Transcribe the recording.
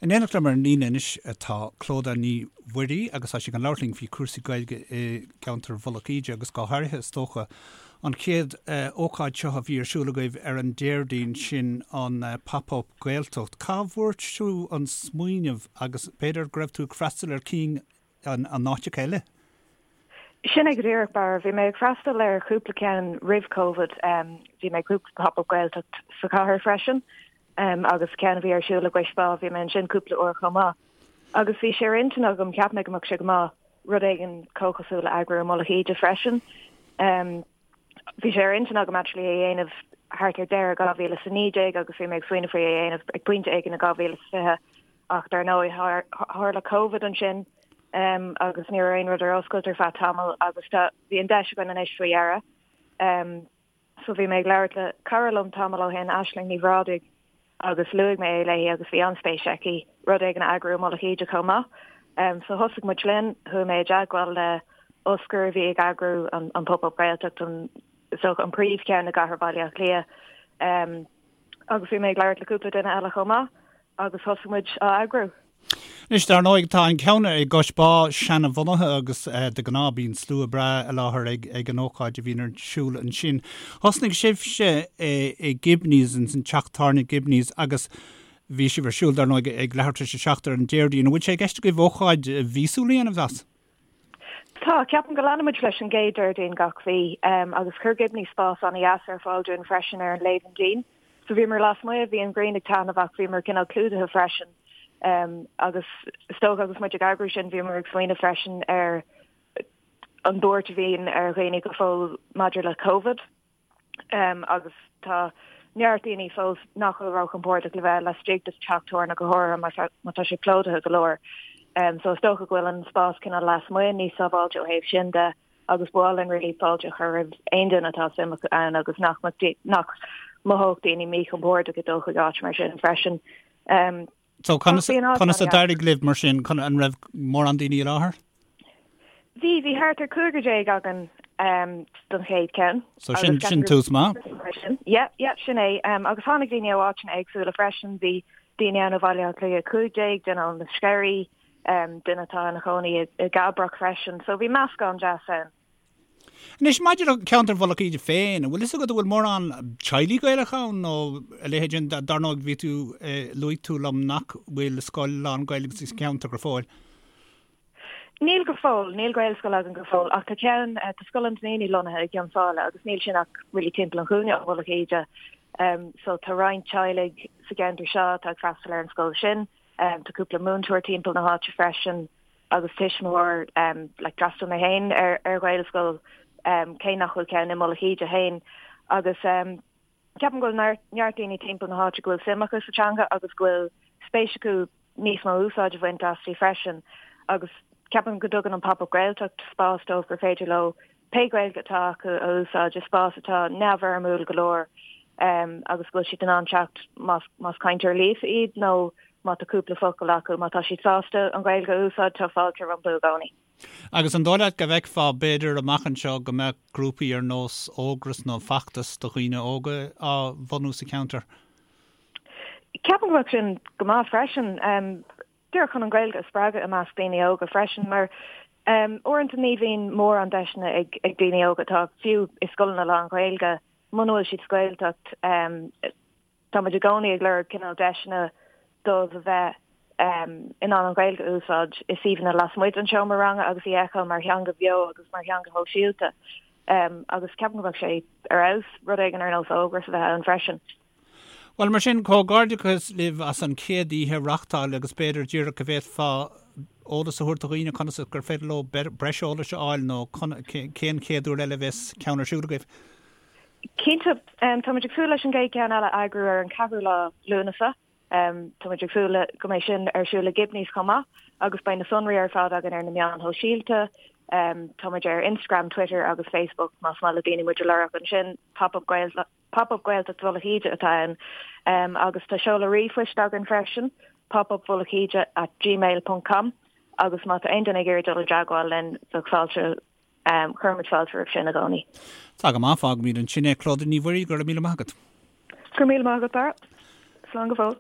In éineacht liom ar an líne anois tá Clodagh Ní Mhuirí agus tá sí chun labhairt linn faoi chúrsaí Gaeilge i gceantar Mhullach Íde agus go háirithe is dócha an chéad ócáid seo a bhí ar siúl agaibh ar an Déardaoin sin an Pop Up Gaeltacht. Cá bhfuair tú an smaoineamh agus b'fhéidir go raibh tú ag freastal ar cinn in áiteacha eile? Sin é go díreach, Barra. Bhí mé ag freastal ar chúpla ceann roimh Covid. Bhí mé ag cúpla Pop Up Gaeltacht sa chathair freisin agus ceann a bhí ar siúl i gCois Bá, bhí mé ansin cúpla uair chomh maith. Agus bhí sé ar intinn agam, cheap mé go mbeadh sé go maith rud éigin comhchosúil a eagrú i Mullach Íde freisin. Bhí sé ar intinn agam actually é a dhéanamh thart ar deireadh 2019 agus bhí mé ag smaoineamh faoi é a dhéanamh ag pointe éigin i 2020 ach dar ndóigh tharla Covid ansin agus ní raibh aon rud ar oscailt ar feadh tamaill agus tá bhí an deis againn anois faoi dheireadh. So bhí mé ag labhairt le cara liom tamall ó shin, Aisling Ní Bhrádaigh, agus luaigh mé é léi agus bhí an-spéis aici rud éigin a eagrú i Mullach Íde chomh maith. So thosaigh muid linn, chuaigh mé i dteagmháil le Oscar a bhí ag eagrú an an Pop Up Gaeltacht, an is dócha an príomhcheann i gcathair Bhaile Átha Cliath. Agus bhí mé ag labhairt le cúpla duine eile chomh maith agus thosaigh muid á eagrú. Anois, dar ndóigh, tá an ceann i gCois Bá seanabhunaithe agus de ghnáth bíonn slua breá i láthair ag an ócáid a bhíonn ar siúl ansin. Thosnaigh sibhse i Gibneys, ins an teach tábhairne Gibneys agus bhí sibh ar siúl, dar ndóigh, ag leathuair tar éis a 7 ar an Déardaoin. An bhfuil sé i gceist agaibh ócáid mhíosúil a dhéanamh as? Tá, ceapaim go leanfaimid leis an gcéad Déardaoin gach mhí agus chuir Gibneys spás an-dheas ar fáil dúinn freisin ar an léibheann dín. So bhíomar lasmuigh, bhí an ghrian ag taitneamh ach bhíomar cineál clúdaithe freisin. Agus is dócha agus muid ag eagrú sin bhíomar ag smaoineamh freisin ar an buairt a bhíonn ar dhaoine go fóill maidir le Covid. Agus tá neart daoine fós nach bhfuil róchompordach le bheith laistigh de teach tábhairne go háirithe má tá sé plódaithe go leor. So is dócha go bhfuil an spás cineál lasmuigh níos sábháilte ó thaobh sin de agus ba mhaith linn really fáilte a chur roimh aon duine atá suim acu ann agus nach nach mothódh daoine míchompordach ag dul chuig áit mar sin freisin. So conas conas a d'éirigh libh mar sin chun an raibh mórán daoine i láthair? Bhí bhí thart ar 15 againn um, don chéad ceann. So sin sin tús maith? Yeah, yeah, sin é. Um, agus tháinig daoine ó áiteanna éagsúla freisin, bhí daoine ann ó Bhaile Átha Cliath 15, duine ó na Sceirí, um, duine atá ina chónaí i, i gCabrach freisin, so bhí meascán deas ann. Anois, maidir le ceantar Mhullach Íde féin, an bhfuil fhios agat an bhfuil mórán teaghlaigh Gaelacha ann nó a leithéid sin? Dar ndóigh, bhí tú, luaigh tú liom nach bhfuil scoil lán-Ghaeilge sa cheantar go fóill. Níl go fóill, níl Gaelscoil againn go fóill, ach tá ceann, tá Scoil an Duinnínigh lonnaithe i gCionn Sáile agus níl sin ach really timpeall an chúinne ó Mhullach Íde. So tá roinnt teaghlaigh sa gceantar seo atá ag freastal ar an scoil sin. Tá cúpla múinteoir timpeall na háite freisin. agus tuismitheoir like d'fhreastail mé féin ar ar Ghaelscoil cé nach bhfuil ceann i Mullach Íde féin agus ceapaim go bhfuil neart neart daoine timpeall na háite go bhfuil suim acu sa teanga agus go bhfuil spéis acu níos mó úsáid a bhaint aisti freisin agus ceapaim go dtugann an Pop Up Gaeltacht spás dóibh gur féidir leo pé Gaeilge atá acu a úsáid i spás atá neamhfhoirmiúil go leor agus go bhfuil siad in ann teacht más más cainteoir líofa iad nó má tá cúpla focal acu, má tá siad sásta an Ghaeilge a úsáid, tá fáilte rompu i gcónaí. Agus an dóigh leat go bhfeicfeá b'fhéidir amach anseo go mbeadh grúpaí ar nós Ógras nó Feachtas do dhaoine óga á bhunú sa cheantar? Ceapaim go mbeadh sin go maith freisin. Díreach chun an Ghaeilge a spreagadh i measc daoine óga freisin mar uaireanta ní bhíonn mórán deiseanna ag daoine óga atá fiú i scoileanna lán-Ghaeilge muna bhfuil siad sa Ghaeltacht. Tá muid i gcónaí ag lorg cineál deiseanna dóibh a bheith in ann an Ghaeilge a úsáid i suíomhanna lasmuigh den seomra ranga agus í a fheiceáil mar theanga bheo agus mar theanga shóisialta. Agus ceapaim go mbeadh sé ar fheabhas rud éigin ar nós Ógras a bheith ann freisin. Bhuel, mar sin, comhghairdeachas libh as an chéad oíche a reáchtáil agus b'fhéidir díreach go bhféadfá eolas a thabhairt do dhaoine conas gur féidir leo breis eolais a fháil nó cén chéad uair eile a bheas ceann ar siúl agaibh? Cinnte, tá muid ag súil leis an gcéad cheann eile a eagrú ar an 4ú lá Lúnasa. Tá muid ag súil le go mbeidh sin ar siúl i Gibneys chomh maith agus beidh na sonraí ar fad againn ar na meáin shóisialta. Tá muid ar Instagram, Twitter agus Facebook más maith le daoine muid a lorg ansin, Pop Up Pop Up Gaeltacht Mhullach Íde atá ann agus tá seoladh ríomhphoist againn freisin, popupmhullachíde at gmail ponc com agus má tá aon duine ag iarraidh dul i dteagmháil linn bheadh fáilte, cuirimid fáilte roimh sin i gcónaí. Tá go maith, fágfaimid ansin é. Clodagh Ní Mhuirí, go raibh míle maith agat. Go raibh míle maith agat, Barra. Slán go fóill.